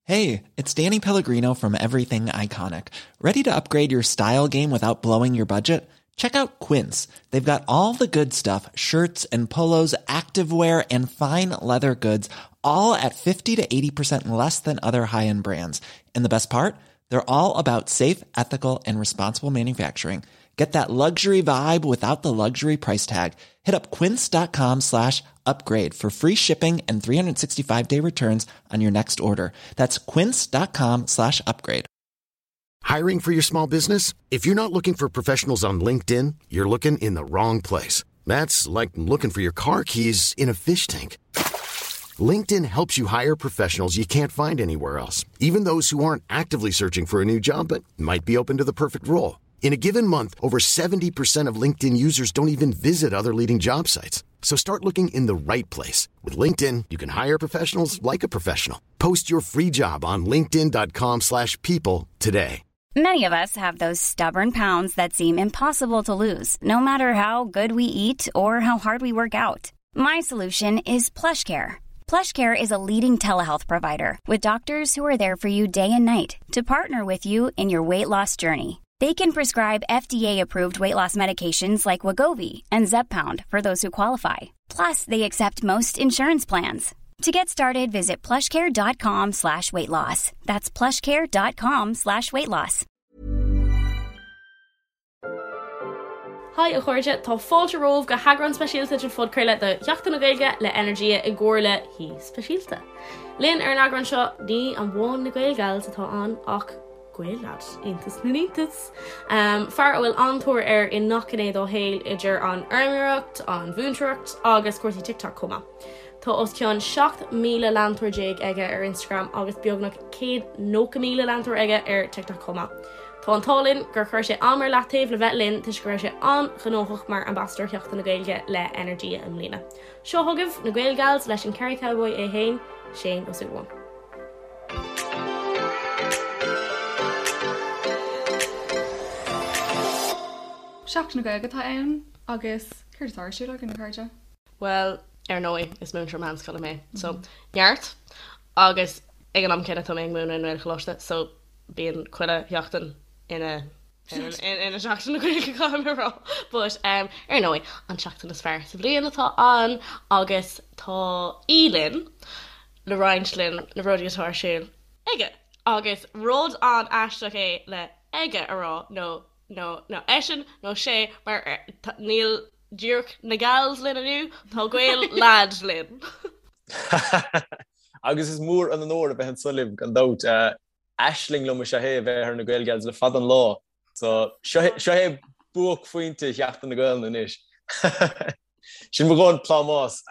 Hey, it's Danny Pellegrino from Everything Iconic. Ready to upgrade your style game without blowing your budget? Check out Quince. They've got all the good stuff shirts and polos, activewear, and fine leather goods, all at 50 to 80% less than other high end brands. And the best part? They're all about safe, ethical, and responsible manufacturing. Get that luxury vibe without the luxury price tag. Hit up quince.com slash upgrade for free shipping and 365 day returns on your next order. That's quince.com slash upgrade. Hiring for your small business? If you're not looking for professionals on LinkedIn, you're looking in the wrong place. That's like looking for your car keys in a fish tank. LinkedIn helps you hire professionals you can't find anywhere else, even those who aren't actively searching for a new job but might be open to the perfect role. In a given month, over 70% of LinkedIn users don't even visit other leading job sites. So start looking in the right place. With LinkedIn, you can hire professionals like a professional. Post your free job on linkedin.com slash people today. Many of us have those stubborn pounds that seem impossible to lose, no matter how good we eat or how hard we work out. My solution is PlushCare. PlushCare is a leading telehealth provider with doctors who are there for you day and night to partner with you in your weight loss journey. They can prescribe FDA-approved weight loss medications like Wegovy and Zepbound for those who qualify. Plus, they accept most insurance plans. To get started, visit plushcare.com slash weight loss. That's plushcare.com slash weight loss. Haigh a chairde, tá fáilte romhaibh go heagrán speisialta den phodchraoladh de Sheachtain na Gaeilge le Energia i gcomhar le haoi speisialta. Linn ar an eagrán seo, ní amháin na Gaelgals atá ann ach Gael-lad, iontas na n-iontas! Fear a bhfuil an-tóir air i ngach gné dá shaol, idir an fheirmeoireacht, an mhúinteoireacht agus cúrsaí TikTok chomh maith. Tá os cionn 17,000 leantóir aige ar Instagram agus beagnach 190,000 leantóir aige ar TikTok chomh maith. Tá an t-ádh linn gur chuir sé am ar leataobh le bheith linn toisc go raibh sé an-ghnóthach mar Ambasadóir Sheachtain na Gaeilge le Energia i mbliana. Seo chugaibh na Gaelgals leis an Kerry Cowboy é féin, Shane Ó Súilleabháin. Seachtain na Gaeilge atá ann agus céard atá ar siúl againn, a chairde? Bhuel, ar ndóigh, is múinteoir meánscoile mé, so neart! Agus ag an am céanna tá mé ag múineadh i nGaelcholáiste, so bíonn chuile sheachtain ina ina Seachtain na Gaeilge, caithfidh mé a rá. But um, ar ndóigh, an tseachtain is fearr sa bhliain atá ann agus tá aoi linn le roinnt linn na rudaí atá ar siúl aige. Agus rud an-aisteach é le aige a rá nó nó nó eisean nó sé mar níl díreach na gals linn inniu, tá Gael-lad linn. Agus is mór an onóir a bheith anso libh gan dabht. Aisling liom is ea é a bheith ar na Gaelgals le fada an lá. So seo é buaicphointe Sheachtain na Gaelainne anois. Sin mo dhóthain plámás.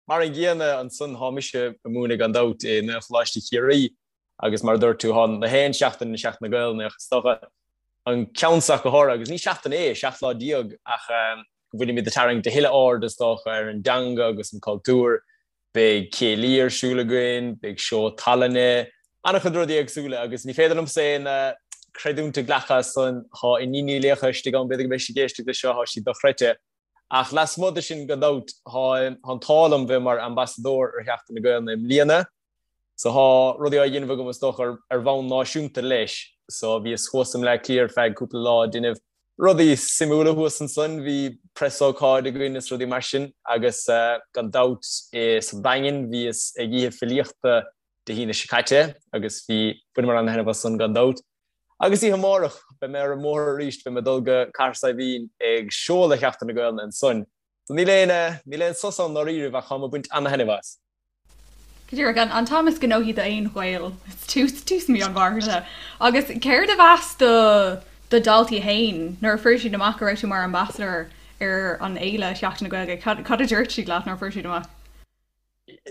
Mar an gcéanna ansan thá mise ag múineadh gan dabht i nGaelcholáiste Chiarraí agus mar a dúirt tú thá na haon seachtain ina Seachtain na Gaelainne ach is dócha an ceann seo go háirithe agus ní seachtain é, 17 lá ach go bhfuilimid ag tarraingt a thuilleadh aird is dócha ar an dteanga agus an cultúr. Beidh céilí ar siúl againn, beidh seó tallainne, an-chuid rudaí éagsúla agus ní féidir liomsa aon creidiúint a ghlacadh as san, thá Iníon Ní Laocha istigh ann, b'fhéidir go mbeidh sí ag éisteacht leis seo, thá sí dochreidte. Ach lasmuigh de sin gan dabht, thá an t-ádh liom bheith mar ambasadóir ar Sheachtain na Gaelainne i mbliana. So thá rudaí á dhéanamh agam is dócha ar bhonn náisiúnta leis. So bhíos thuas i mBleá Cliath ar feadh cúpla lá ag déanamh rudaí suimiúla thuas ansan, bhí preasócáid againn is rudaí mar sin agus gan dabht sa Daingean bhíos ag oíche filíochta Dé hAoine seo caite agus bhí, bhaineamar an-thaitneamh as san gan dabht. Agus oíche amárach beidh mé ar an mbóthar arís, beidh mé ag dul go Cathair Saidhbhín ag seoladh Sheachtain na Gaelainne ansan. So níl aon, níl aon sos ann ndáiríribh ach táim ag baint an-thaitneamh as. Go díreach, an t-am is gnóthaí d'aon Ghael, tús, tús mí an Mhárta. Agus céard a mheas do do dhaltaí féin nuair a fuair siad amach go raibh tú mar ambassador ar an fhéile Sheachtain na Gaeilge? Cad, cad a dúirt siad leat nuair a fuair siad amach?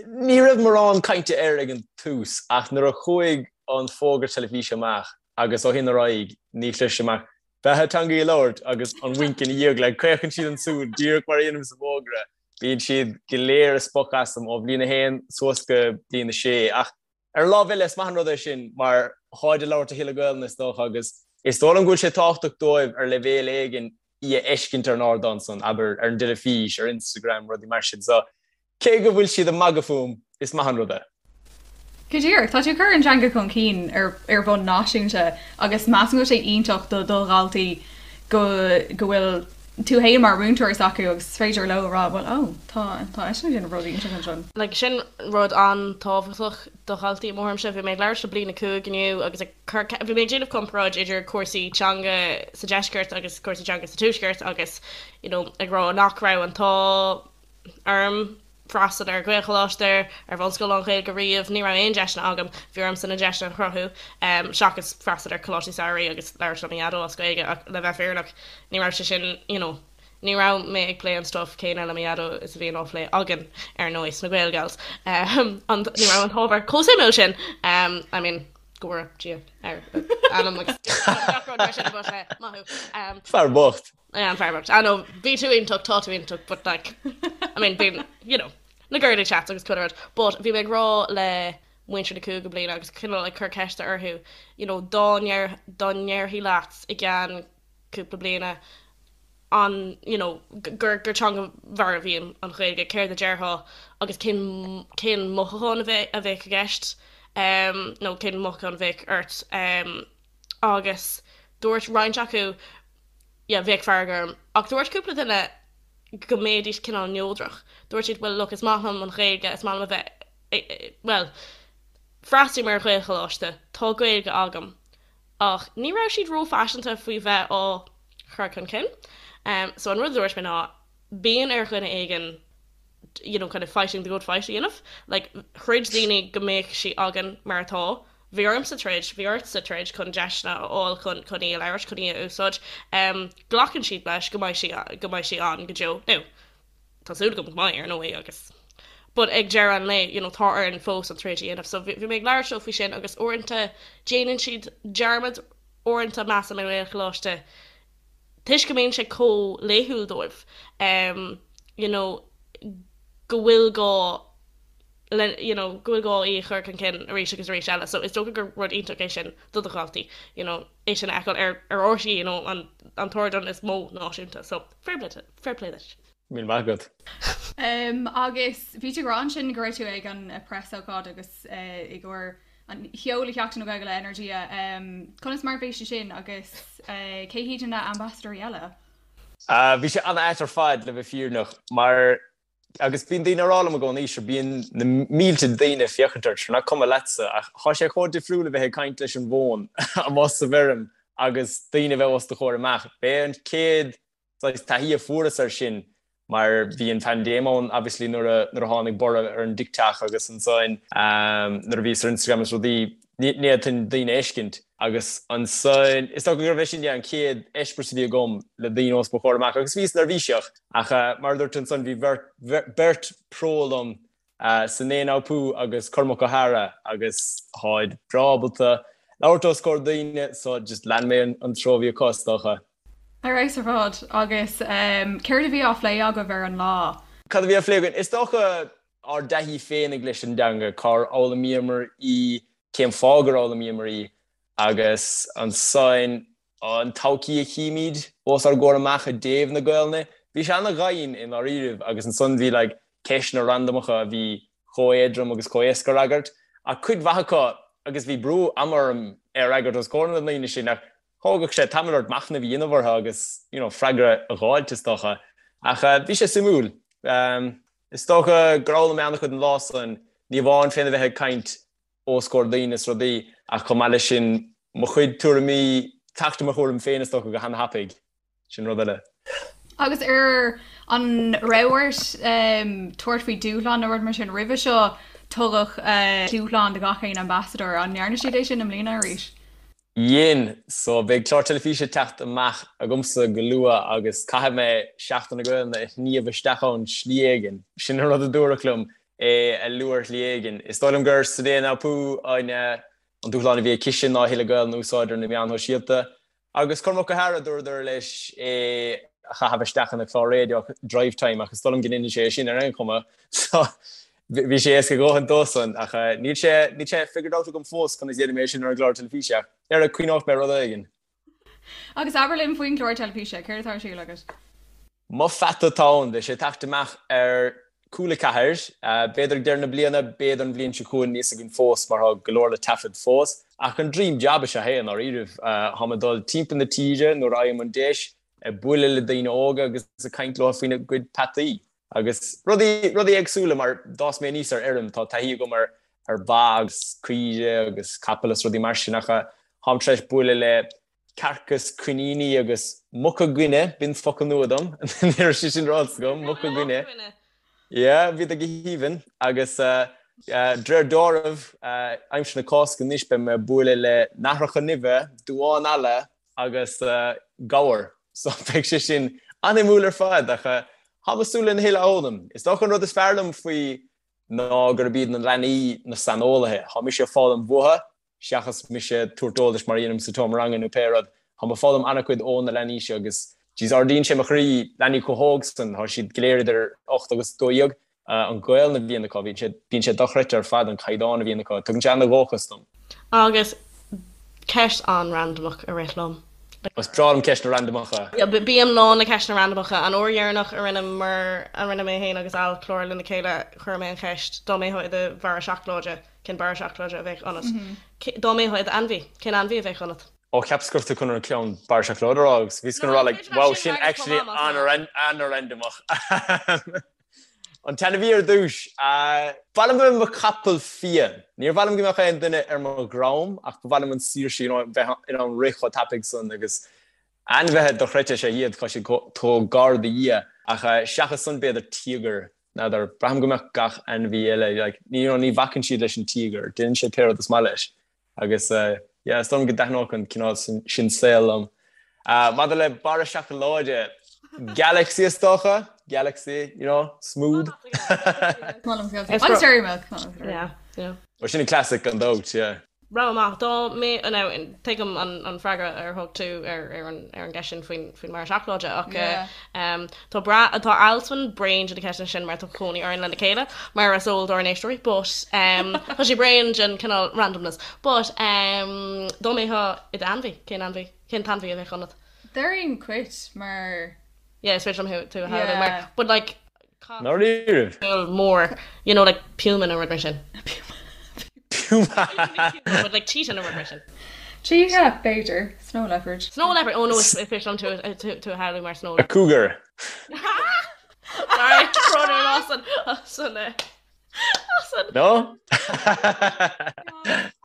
Ní raibh mórán cainte air ag an tús ach nuair a chuaigh an fógra teilifíse amach agus ó shin ar aghaidh ní chloisim ach beatha teangaí a labhairt agus an winc ina dhiaidh, like caochann siad an tsúil díreach mar a dhéanaim sa bhfógra. Bíonn siad go léir ag spochadh asam ó bhliain 1 suas go bliain 6 ach ar an lámh eile is maith an rud é sin mar tháid ag labhairt a thuilleadh Gaelainne is dócha agus is dóigh liom go bhfuil sé tábhachtach dóibh ar leibhéal éigin í a fheiscint ar an ardán san, abair, ar an dteilifís, ar Instagram, rudaí mar sin. So cé go bhfuil siad ag magadh fúm, is maith an rud é. Go díreach, tá tú ag cur an teanga chun cinn ar ar bhonn náisiúnta agus measaim go bhfuil sé iontach do do dhaltaí go go bhfuil tú fhéin mar mhúinteoir s'acu agus is féidir leo a rá bhuel ó tá tá eisean ag déanamh rud iontach ansin. Like sin rud an-tábhachtach do dhaltaí i mo thuairimse. Bhí mé ag labhairt le bliain 5 inniu agus ag cur bhí mé ag déanamh comparáid idir cúrsaí teanga sa deisceart agus cúrsaí teanga sa tuaisceart agus you know ag rá nach raibh an t-ádh orm freastal ar Ghaelcholáiste, ar bhunscoil lán-Ghaeilge riamh, ní raibh aon deiseanna agam, bhí ormsa na deiseanna a chruthú, seachas freastal ar choláistí samhraidh agus labhairt le mo dhaideo as Gaeilge ach le bheith fírinneach ní raibh sé sin you know ní raibh mé ag plé an stuff céanna le mo dhaideo is a bhíonn á phlé againn ar ndóigh sna Gaelgals. An ní raibh an t-ábhar chomh suimiúil sin I mean go bhfóire Dia ar anam agus gach rud mar sin but maith thú. Fear bocht. Yeah, an fear bocht. I know, bhí tú iontach, tá tú iontach, but like, I mean, bíonn, you know, na girly chats agus chuile rud. But bhí mé ag rá le muintir na cúigiú bliana agus cineál ag cur ceiste orthu, you know, dá ndeir, dá ndéarfaí leat i gceann cúpla bliana an, you know, gur, gur teanga mharbh í an Ghaeilge, céard a déarfá agus cén, cén mothúchán a bheadh, a bheadh i gceist, um, nó cén mothúchán a bheadh ort, um, agus dúirt roinnt acu, yeah, bheadh fearg orm. Ach dúirt cúpla duine go mbeidís cineál neodrach. Dúirt siad, well look, is maith liom an Ghaeilge, is maith liom a bheith, bhuel, freastalaím ar Ghaelcholáiste, tá Gaeilge agam. Ach ní raibh siad róphaiseanta faoi bheith á chur chun cinn. So an rud a dúirt mé ná, bíonn ar dhuine éigin you know, kind of fighting the good fight a dhéanamh. Like, throid daoine go mbeadh sí againn mar atá. Bhí ormsa troid, bhí ortsa troid chun deiseanna a fháil chun chun í a labhairt, chun í a úsáid. Glacann siad leis go mbeidh sí go mbeidh sí ann go deo. Now, tá súil agam go mbeidh, ar ndóigh, agus but ag deireadh an lae, you know, tá orainn fós an troid a dhéanamh. So bhí mé ag labhairt leo faoi sin agus uaireanta déanann siad dearmad, uaireanta measaim i nGaelcholáiste toisc go mbíonn sé chomh laethúil dóibh, you know, go bhfuil gá le, you know, go bhfuil gá í a chur chun cinn arís agus arís eile. So is dócha gur rud iontach é sin do do dhaltaí, you know, é sin a fheiceáil ar ar RTÉ, you know, an an t-ardán is mó náisiúnta. So fair play fair play duit. Míle maith agat. Um, agus bhí tú ag rá ansin go raibh tú ag an preasócáid agus uh, i gcomhair an sheoladh Sheachtain na Gaeilge le Energia. Conas mar a bhí sé sin agus cé hiad na ambasadóirí eile? Bhí sé an-ait ar fad le bheith fírinneach mar agus bíonn daoine ag rá liom i gcónaí sure bíonn na mílte daoine ag féachaint ort sure nach cuma leatsa ach tá sé chomh difriúil a bheith ag caint leis an bhfón amuigh sa bhfeirm agus daoine a bheith os do chomhair amach. B'é an chéad saghas taithí a fuaireas air sin mar bhí an phaindéim ann obviously nuair a nuair a tháinig borradh ar an TikTok agus ansan nuair a bhíos ar Instagram is rudaí ní fhéadfainn daoine a fheiscint agus ansan is dócha gurbh é sin yeah an chéad eispéireas a bhí agam le daoine os mo chomhair amach agus bhíos neirbhíseach ach mar a dúirt ansan bhí bheirt beirt pro liom Sinéad O'Pú agus Cormac Ó hEadhra agus táid breá ábalta labhairt os comhair daoine so just lean mé an treo a bhí acu is dócha. Ar fheabhas ar fad. Agus céard a bhí á phlé agaibh ar an lá? Cad a bhí á phlé againn? Is dócha ár dtaithí féinig leis an dteanga, cár fhoghlaimíomar í, cén fáth gur fhoghlaimíomar í agus ansan an todhchaí a chímid os ár gcomhair amach i dtaobh na Gaelainne. Bhí sé ana-dhoimhin i ndáiríribh agus ansan bhí like ceisteanna randamacha a bhí chomh éadrom agus chomh éasca a fhreagairt ach cuid mhaith acu agus bhí brú ama orm é a fhreagairt os comhair na ndaoine sin ach thógadh sé tamall ort machnamh a dhéanamh orthu agus you know freagra a dh'fháilt is dócha. Ach bhí sé suimiúil. Is dócha gur fhoghlaim mé an-chuid an lá san, ní amháin féna bheith ag caint os comhair daoine is rudaí ach chomh maith leis sin mo chuid tuairimí, teacht i mo thuairim féin is dócha go han-thapaidh. Sin rud eile. Agus ar an raibh ort tabhairt faoi dúshlán nó rud mar sin roimhe seo, tugadh dúshlán do gach aon ambasadóir, an ndearna siad é sin i mbliana arís? Dhein. So beidh clár teilifíse ag teacht amach agamsa go luath agus caithfidh mé Seachtain na Gaelainne a shníomh isteach ann slí éigin. Sin an rud a dúradh liom, é a lua ar shlí éigin. Is dóigh liom gur Sinéad O'Pú an dúshlán a bhí aicise ná a thuilleadh Gaelainne a úsáid ar na meáin shóisialta. Agus Cormac Ó hEadhra, dúradar leis é a chaitheamh isteach ina chlár raidió Drivetime ach is dóigh liom go ndéanann sé é sin ar aon chuma. So bhí sé éasca a dhóthain dósan ach níl sé níl sé figured out agam fós conas a dhéanfaidh mé é sin ar an gclár teilifíse ach ar cuimhneoidh mé rud éigin. Agus abair linn faoin gclár teilifíse, céard atá ar siúl agat? Mo Pheata atá ann, beidh sé ag teacht amach ar. Cúla 4, B'fhéidir ag deireadh na bliana, b'fhéidir an bhliain seo chugainn, níl a fhios againn fós mar tá go leor le taifead fós. Ach an dream job is ea é i ndáiríribh. Táim ag dul timpeall na tíre nuair a fhaighim an deis, ag bualadh le daoine óga agus ag caint leo faoina gcuid peataí agus rudaí, rudaí éagsúla mar d'fhás mé aníos ar fheirm, tá taithí agam ar ar ba agus caoire agus capaill is rudaí mar sin ach táim tar éis bualadh le cearca is coiníní agus muca guine, b'in focal nua dom, ní raibh sé sin ráite agam, muca guine. Yeah, bhíodar go haoibhinn agus de réir dealraimh, aimsir na Cásca anois beidh mé ag bualadh le nathracha nimhe, duáin alla agus gabhar. So beidh sé sin an-shuimiúil ar fad ach táim ag súil lena thuilleadh a fhoghlaim. Is dócha an rud is fearr liom faoi ná gurb iad na leanaí na saineolaithe. Tá mise ag foghlaim uathu seachas mise ag tabhairt eolais mar a dhéanaim sa tseomra ranga nó pé rud. Táim ag foghlaim an-chuid ó na leanaí seo agus jeez ardaíonn sé mo chroí, leanaí chomh hóg san, tá siad go léir idir 8 agus 12, an Ghaelainn a bhíonn acu, bíonn sé, bíonn sé dochreidte ar fad an caighdeán a bhíonn acu, tugann sé an-dhóchas dom. Agus ceist an-randamach a rith liom. Is breá liom ceisteanna randamacha. Bím lán le ceisteanna randamacha. An uair dheireanach a rinneamar, a rinne mé féin agus Al clár lena chéile, chuir mé an cheist, dá mbeifeá i do bharra seacláide, Cén barra seacláide a bheadh ionat? Dá mbeifeá i d'ainmhí, cén ainmhí a bheadh ionat? Ó, cheapas go raibh tú chun an ceann barra seacláide a rá agus bhíos chun a rá like, wow, sin actually an-randamach. An t-ainmhí ar dtús, ba mhaith liom a bheith i mo chapall fiáin. Níor mhaith liom go mbeadh aon duine ar mo dhroim ach ba mhaith liom an saoirse, you know, bheith in ann rith chomh tapaidh san agus ainmhithe dochreidte is ea iad, tá siad chomh gar do Dhia. Ach seachas san b'fhéidir tíogar. N'fheadar, braithim go mbeadh gach ainmhí eile, like, you know, ní bhacann siad leis an tíogar, déanann sé pé rud is maith leis. Agus, yeah, is dóigh liom go dtaitneodh an cineál sin saoil liom. Maidir le barra seacláide, Galaxy is dócha, Galaxy, you know, smooth. Agus Dairy Milk. Yeah, yeah. Ó, sin an classic gan dabht, yeah. Rogha maith. Dá mbeadh, now, tuigim an freagra ar thug tú ar an gceist sin faoin mbarra seacláide ach tá bra, tá Alswyn bréan de na ceisteanna sin mar tá cónaí orainn lena chéile, mar is eol dár n-éisteoirí, but tá sé bréan den cineál randomness. But dá mbeifeá i d'ainmhí, cén ainmhí, cén t-ainmhí a bheadh ionat? Déarfainn cait mar. Yeah, is féidir liom tú a shamhlú mar, but like, Ndáiríribh? mór, you know, like puma nó rud mar sin. Puma! But like cheetah nó rud mar sin. Cheetah, b'fhéidir. Snow leopard. Snow leopard! Oh no, is féidir liom tú tú a shamhlú mar snow A cougar. Sorry, brón orm as an, as an, eh, as an. No?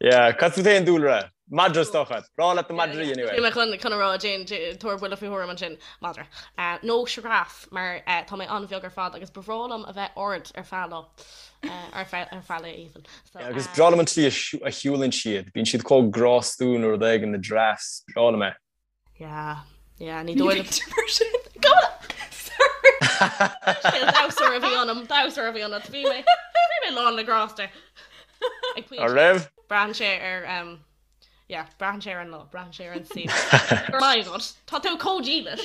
Yeah, cad fút féin Dúlra? Madra is dócha. Breá leat na madraí anyway. Bhí mé chun chun a rá Jane tabhair buille faoi thuairim ansin madra. Nó sioráf mar tá mé an-bheag ar fad agus ba bhreá liom a bheith ard ar feadh lá. Ar feadh ar feadh lae even. So, Yeah, agus breá liom an tslí a shiúlann siad. Bíonn siad chomh grástúil nó rud éigin na giraffes. Breá liom é. Yeah, yeah, ní dóigh liom mar sin. Sorry. Damhsóir a bhí ionam, damhsóir a bhí ionat. Bhí mé, bhí mé lán le grásta. Ag pointe. An raibh? Braitheann sé ar, um, yeah, braitheann sé ar an lá, braitheann sé ar an saol. My God, tá tú chomh dílis.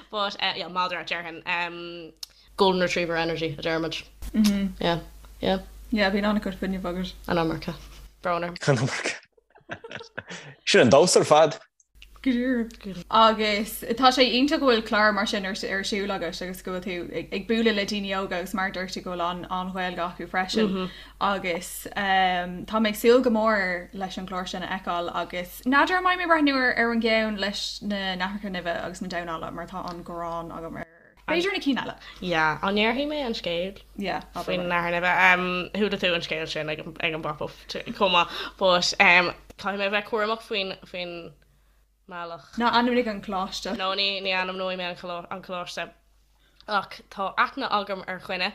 But, uh, yeah, madra, déarfainn. Um, golden retriever energy, a deirimid. Yeah, yeah. Yeah, bíonn an-chuid fuinnimh agat. An iomarca. Brón orm. An iomarca. Sin an damhsa ar fad. Go díreach. Agus tá sé iontach go bhfuil clár mar sin ar siúl agat agus go bhfuil tú ag bualadh le daoine óga agus mar a dúirt tú go bhfuil an-Ghaeilge acu freisin. Agus tá mé ag súil go mór leis an gclár sin a fheiceáil agus n'fheadar an mbeidh mé ag breathnú ar an gceann leis na nathracha nimhe agus na damháin alla mar tá an ghráin agam ar B'fhéidir na cinn eile. Yeah, an ndéarfaidh mé an scéal? Yeah, abair. Faoin nathair nimhe. Chuala tú an scéal sin ag an bpop-up chomh maith. But caithfidh mé a bheith cúramach faoin faoin mbealach. Ná ainmnigh an coláiste. No, ní ní ainmneoidh mé an coláiste. Ach tá aithne agam ar dhuine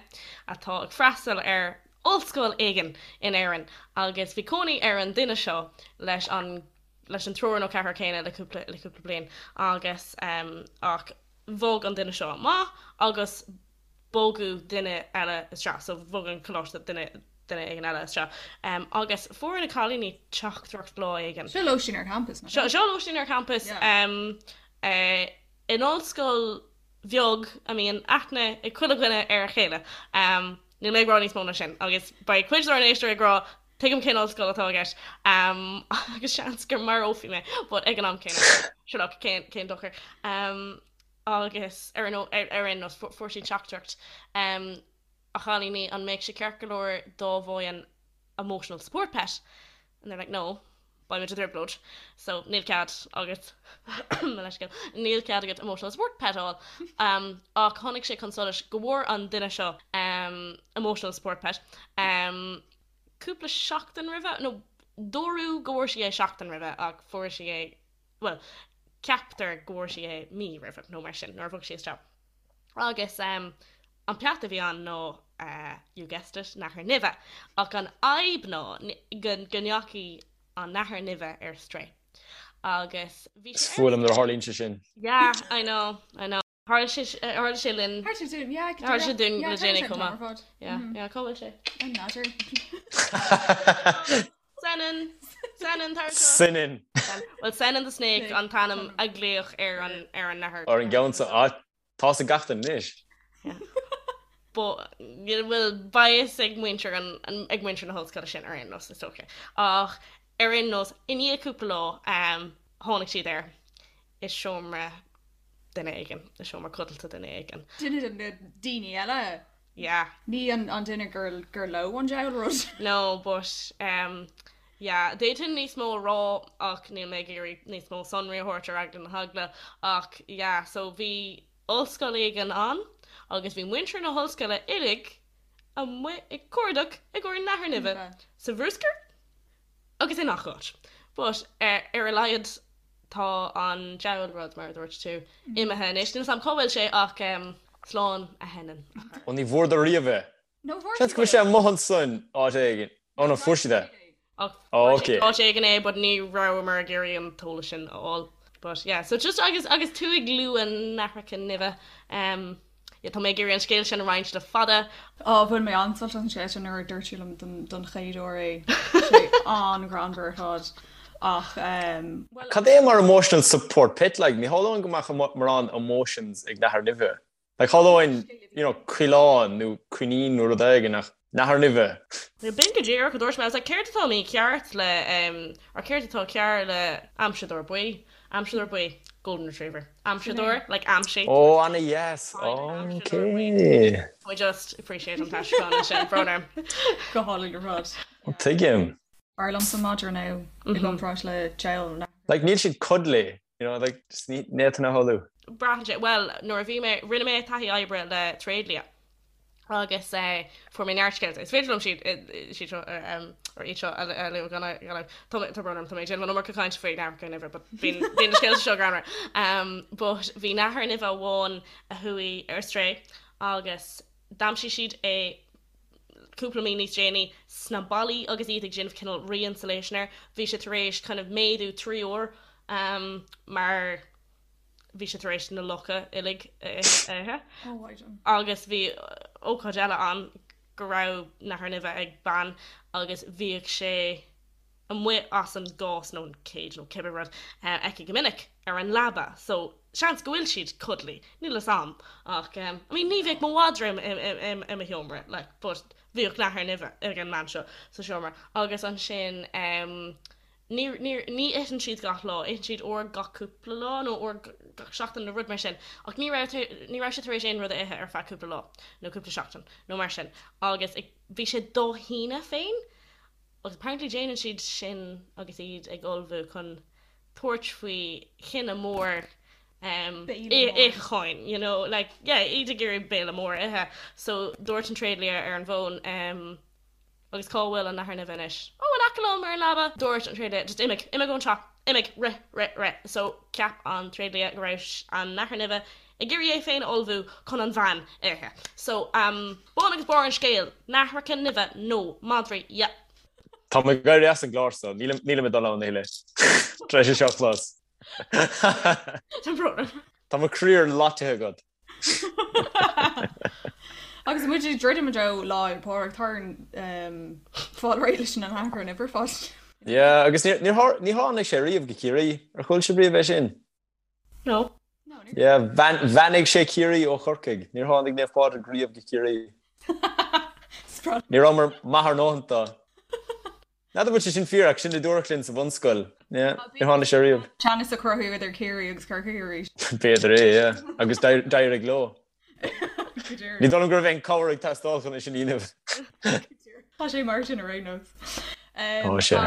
atá ag freastal ar ollscoil éigin in Éirinn agus bhí cónaí ar an duine seo leis an leis an triúr nó ceathrar céanna le cúpla le cúpla bliain agus ach bhog an duine seo amach agus bogadh duine eile isteach, so bhog an coláiste duine duine éigin eile isteach. Agus fuair na cailíní teachtaireacht lá éigin. Seo lóistín ar campas, nach ea? Seo lóistín ar campas in ollscoil bheag a mbíonn aithne ag chuile dhuine ar a chéile. Níl mé ag rá níos mó ná sin agus beidh cuid dár n-éisteoirí ag rá tuigim cén ollscoil atá i gceist agus seans go marófaí mé but ag an am céanna sure look cén dochar. Agus ar aon nós, fuair siad teachtaireacht, A chailíní, an mbeadh sé ceart go leor dá bhfaighinn emotional support pet? And they're like, no, beimid i dtrioblóid, so níl cead agat, mo leithscéal, níl cead agat emotional support pet a fháil. Ach tháinig sé chun solais go bhfuair an duine seo emotional support pet cúpla seachtain roimhe, nó dúradh go bhfuair sí é seachtain roimhe ach fuair sí é bhuel, ceaptar go bhfuair sí é mí roimhe nó mar sin, nuair a bhog sí isteach. Agus an peata a bhí ann ná, you guessed it, nathair nimhe. Ach an fhadhb ná go ndeachaigh an nathair nimhe ar strae. Agus bhí sé ar. Is fuath liom nuair a tharlaíonn sé sin. Yeah, I know, I know. Tharla sé, tharla sé linn. Tharla sé dúinn, yeah. Tharla sé dúinn le déanaí chomh maith. Yeah, yeah, cá bhfuil sé? An nathair. Senan! Senan, tar anseo. Senan. Well, Senan the Snake an t-ainm a glaodh ar an, ar an nathair. Ar an gceann seo, ah, tá 'fhios ag gach duine anois. Yeah. But, bhuel, beidh fhios ag muintir an, ag muintir na hollscoile sin ar aon nós, is dócha. Ach ar aon nós, i ndiaidh cúpla lá, tháinig siad air i seomra duine éigin, i seomra codlata duine éigin. Duine de na daoine eile? Yeah. Ní an duine gur gur leo an diabhal rud. No, but um, yeah, d'fhéadfainn níos mó a rá ach níl mé ag iarraidh níos mó sonraí a thabhairt ar eagla na heagla ach yeah, so bhí ollscoil éigin ann agus bhí muintir na hollscoile uilig amuigh ag cuardach i gcomhair nathair nimhe sa bhruscar agus i ngach áit. But ar a laghad tá an diabhal rud, mar a dúirt tú, imithe anois. Níl 'fhios a'm cá bhfuil sé ach slán a Shenan. Ó ní bhfuaireadar riamh é. Seans go bhfuil sé amuigh ansan áit éigin. Ó no, fuair siad é. Ach fuair siad áit éigin é but ní rabhamar ag iarraidh an t-eolas sin a fháil. But yeah, so just agus agus tú ag lua nathracha nimhe, Yeah, tá mé ag iarraidh an scéal sin a roinnt le fada. Á, bhain mé an-sult as an scéal sin nuair a dúirt tú liom don chéad uair é. Tá sé an-ghreannmhar ar fad. Ach, bhuel. Cad é mar emotional support pet like? Ní shamhlóinn go mbeadh mórán emotions ag nathair nimhe. Like shamhlóinn, you know, coileán nó coinín nó rud éigin ach nathair nimhe. B'in go díreach a dúirt mé. I was like, céard atá mícheart le, or céard atá cearr le aimseadóir buí? Aimseadóir buí, golden retriever. Aimseadóir, like aimsigh. Ó, ana dheas. Ok. I just appreciate an t-aistriúchán ansin, brón orm. Go hálainn ar fad. Tuigim. B'fhearr liomsa madra now i gcomparáid le diabhal nathair. Like níl siad cuddly, you know, like just ní fhéadfainn a shamhlú. Braitheann sé, bhuel, nuair a bhí mé, rinne mé taithí oibre le tréidlia. agus fuair mé neart scéalta. Is féidir liom siad siad seo or iad seo a lua gan gan tá tá brón orm tá mé ag déanamh an iomarca cainte faoi nathracha nimhe but bíonn bíonn na scéalta seo greannmhar. Um, but bhí nathair nimhe amháin a chuaigh ar strae agus d'aimsigh siad é cúpla mí níos déanaí sna ballaí agus iad ag déanamh cineál re-insulation air. Bhí sé tar éis kind of méadú 3 uair um, mar bhí sé tar éis na lucha uilig a ithe. Agus bhí ócáid eile ann go raibh nathair nimhe ag bean agus bhíodh sé amuigh as an gcás nó an cage nó cibé rud aici go minic ar an leaba so seans go bhfuil siad cuddly, níl fhios a'm ach I mean ní bheadh mo mhadra i mo sheomra like but bhíodh nathair nimhe ag an mbean seo sa seomra agus ansin Ní, ní, ní itheann siad gach lá, itheann siad uair gach cúpla lá nó uair gach seachtain nó rud mar sin. Ach ní raibh, ní raibh sé tar éis aon rud a ithe ar feadh cúpla lá nó cúpla seachtain nó mar sin. Agus ag, bhí sé dá shíneadh féin agus apparently déanann siad sin agus iad ag ullmhú chun tabhairt faoi chinneadh mór em, Béile mór. itheacháin, you know, like, yeah, iad ag iarraidh béile mór a ithe. So dúirt an tréidlia ar an bhfón, em, Agus cá bhfuil an nathair nimhe anois? Ó, in aice liom ar an leaba! Dúirt an tréidlia, Just imigh, imigh ón teach, imigh, rith, rith, rith. So cheap an tréidlia go raibh an nathair nimhe ag iarraidh é féin a ullmhú chun an bhean a ithe. So, um, bun agus barr an scéil, nathracha nimhe nó madraí, yep. Tá mé ag éirí as an gclár so, nílim, nílim ag dul ann a thuilleadh. Tar éis é seo a chlos. Tá brón orm. Tá mo chroí ar loiteadh agat. Agus muid ag druidim i dtreo Lá Fhéile Pádraig, tá orainn fáil réidh leis an nathair nimhe ar fad. Yeah, agus níor ní tháinig sé riamh go Ciarraí. Ar chuala sibh riamh é sin? No. Yeah, bheannaigh sé Ciarraí ó Chorcaigh. Níor tháinig Naomh Pádraig riamh go Ciarraí. Ní rabhamar maith ár ndóthain dó. N'fheadar an bhfuil sé sin fíor ach sin a dúradh linn sa bhunscoil. Yeah, níor tháinig sé riamh. Teannas a chruthú idir Ciarraí agus Corcaigh arís. B'fhéidir é, yeah. Agus d'éirigh leo. Ní dóigh liom go raibh aon cabhair ag teastáil chun é sin a dhéanamh. Tá sé mar sin ar aon nós. Tá sé.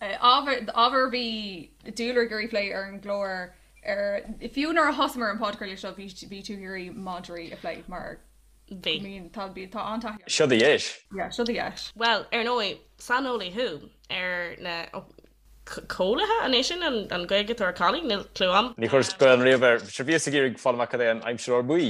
Ábhar ábhar a bhí Dúlra ag iarraidh plé ar an gclár ar fiú nuair a thosaíomar an podchraoladh seo bhí bhí tú ag iarraidh madraí a phlé mar Bhí. Bíonn tá bíonn tá an-taithí Seo do dheis. Yeah, seo do dheis. Bhuel, ar ndóigh, saineolaí thú ar na cóilithe, an é sin an Ghaeilge atá ar collie? Níl clue a'm. Ní chuireas Gaelainn riamh air. Sure bhíos ag iarraidh fáil amach cad é an aimsireoir buí.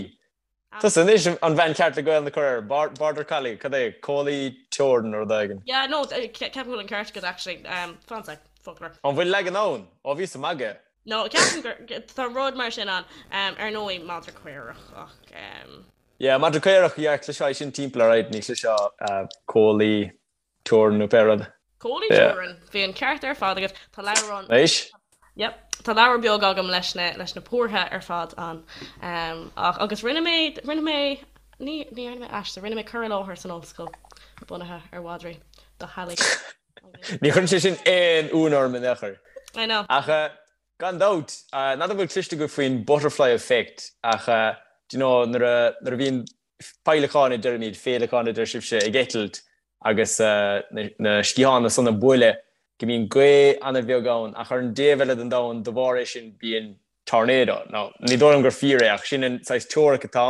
Tusa anois an bhean cheart le Gaelainn a chur air. Border collie, cad é? Cóilí teorann nó rud éigin. Yeah, no, ceapaim go bhfuil an ceart agat actually. Fan sec, foclóir. An bhfuil leagan ann? Ó, bhíos ag magadh. No, ceapaim gur, tá rud mar sin ann. Ar ndóigh, madra caorach ach. Yeah, madra caorach, yeah, chloisfeá é sin timpeall alright, ní chloisfeá cóilí teorann nó pé rud. Cóilí teorann, bhí an ceart ar fad agat. Tá leabhrán. Anois? Yep, tá leabhar beag agam leis na, leis na pórtha ar fad ann. Ach, agus rinne mé, rinne mé, ní, ní dhearna mé aiste, rinne mé cur i láthair san ollscoil bunaithe ar mhadraí do theaghlaigh. Ní chuireann sé sin aon ionadh orm in aon chor. I know. Ach gan dabht, n'fheadar an bhfuil cloiste agaibh faoin butterfly effect ach do you know nuair a nuair a bhíonn féileacáin a deirimid, féileacáin a deir sibhse, ag eitilt agus na sciatháin san ag bualadh go mbíonn gaoth an-bheag ann ach ar an dtaobh eile den domhan de bharr é sin bíonn tornado. Now, ní dóigh liom gur fíor é ach sin an saghas teoiric atá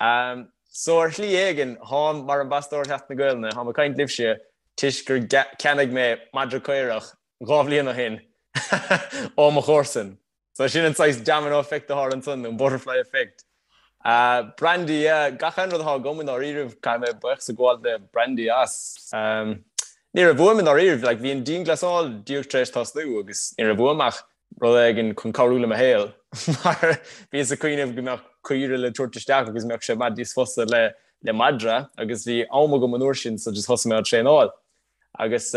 ann. So ar shlí éigin, tháim mar ambasadóir Sheachtain na Gaelainne, tháim ag caint libhse toisc gur cheannaigh mé madra caorach 2 bhliain ó shin ó mo chomharsan. So sin an saghas domino effect atá ansan, nó an butterfly effect. Brandy, yeah, gach aon rud atá agam i ndáiríribh, caithfidh mé buíochas a ghabháil le Brandy as. Ní raibh uaim i ndáiríribh, like bhí an dianghlasáil díreach tar éis tosnú agus ní raibh uaim ach rud éigin chun cabhrú le mo shaol mar bhíos ag cuimhneamh go mbeadh caoire le tabhairt isteach agus mbeadh sé i bhfad níos fusa le le madra agus bhí am agam an uair sin so just thosaigh mé á traenáil agus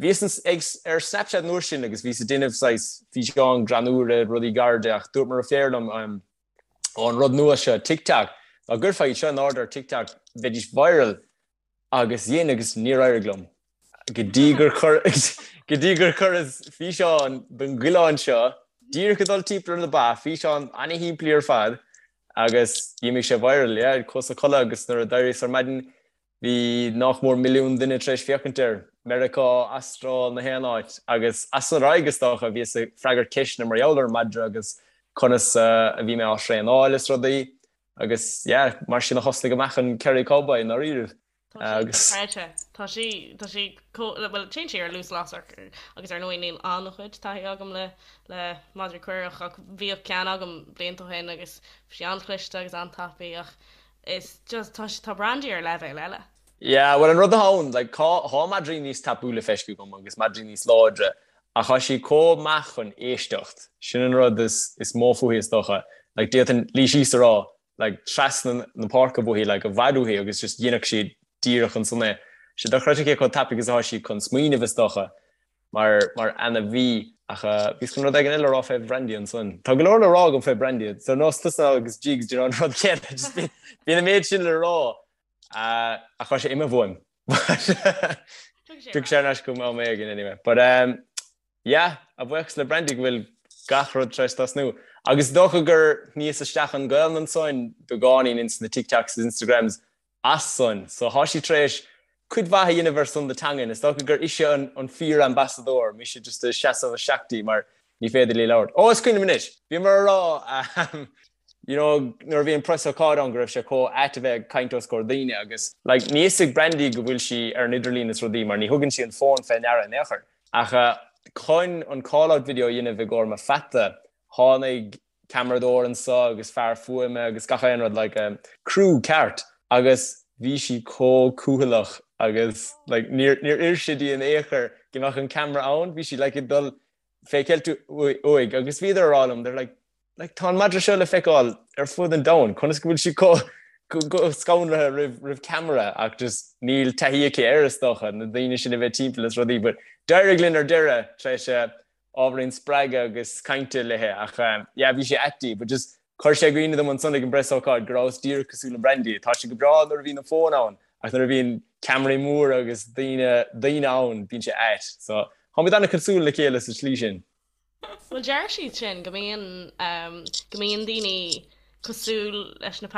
bhíos ag ar Snapchat an uair sin agus bhíos ag déanamh saghas físeáin greannúra rudaí gairide ach dúirt mo dheirfiúr liom ó an rud nua seo TikTok dá gcuirfeá iad seo in airde ar TikTok bheidís viral Agus dhein agus níor éirigh liom. Go dtí gur chuir go dtí gur chuireas físeán den gcoileán seo díreach ag dul timpeall ar na ba, físeán ana-shimplí ar fad, agus d'imigh sé viral, yeah, chuas a chodladh agus nuair a d'éiríos ar maidin bhí nách mór milliún duine tar éis féachaint air, Meiriceá, Astráil, na haon áit, agus as san ar aghaidh is dócha bhíos ag freagairt ceisteanna mar gheall ar an madra agus conas a bhí mé á thraenáil is rudaí. Agus yeah, mar sin a thosnaigh amach an Kerry Cowboy i ndáiríribh. Tá sí dochreidte. Tá sí, tá sí chomh, bhuel, téann sí ar luas lasrach agus ar ndóigh níl an-chuid taithí agam le, le madraí caorach ach bhíodh ceann agam blianta ó shin agus bhí sí an-chliste agus an-tapaidh ach is just, tá sí, tá Brandy ar leibhéal eile. Yeah, bhuel an rud atá ann, like, tá, tá madraí níos tapúla feiscithe agam agus madraí níos láidre ach tá sí chomh maith chun éisteacht, sin an rud is, is mó fúithi is dócha. Like, d'fhéadfainn luí síos a rá, like, trasna na páirce uaithi, like, i bhfad uaithi agus just dhéanfadh sí díreach ansan é. Tá sé dochreidte cé chomh tapaidh is atá sí chun smaoineamh is dócha. Mar, mar ainmhí. Ach bhíos chun rud éigin eile a rá fé Brandy ansan. Tá go leor le rá agam fé Brandy. Is ar nós tusa agus Jigs, do you know, an rud céanna. Just bíonn, bíonn an méid sin le rá. Ach tá sé imithe uaim. Tiocfaidh sé ar ais chugam am éigin anyway. But um, yeah, a bhuíochas le Brandy go bhfuil gach rud tar éis tosnú. Agus is dócha gur shníos isteach an Ghaelainn ansan beagáinín ins na TikToks is Instagrams as san. So thá sí tar éis cuid mhaith a dhéanamh ar son na teangan. Is dócha gur ise an an fíor-ambasadóir, mise just ag seasamh isteach di mar ní féidir léi labhairt. Ó, is cuimhin liom anois! Bhíomar a rá you know, nuair a bhí an preasócáid ann go raibh sé chomh ait a bheith ag caint os comhair daoine agus like níl fhios ag Brandy go bhfuil sí ar an idirlíon is rudaí mar ní thugann sí an fón fé ndeara in aon chor. Ach chun an call-out video a dhéanamh i gcomhair mo pheata, tháinig ceamaradóir anso agus fear fuaime agus gach aon rud, like crew ceart agus bhí sí chomh cúthaileach agus like níor níor oir sé di in aon chor go mbeadh an ceamara ann, bhí sí like ag dul fé cheilt uaidh agus bhíodar a rá liom, they're like like tá an madra seo le feiceáil ar fud an domhain, conas go bhfuil sí chomh scanraithe roimh roimh ceamara ach just níl taithí aici air is dócha, na daoine sin a bheith timpeall is rudaí but d'éirigh linn ar deireadh tar éis ábhairín spreagadh agus cainte léi ach yeah bhí sé ait di but just chuir sé i gcuimhne dom ansan ag an bpreasócáid go rabhas díreach cosúil le Brandy. Tá sé go breá nuair a bhíonn an fón ann. Ach nuair a bhíonn ceamaraí móra agus daoine daoine ann, bíonn sé ait. So, táimid an-chosúil le chéile sa tslí sin. Bhuel, deir siad sin go mbíonn, go mbíonn daoine cosúil leis na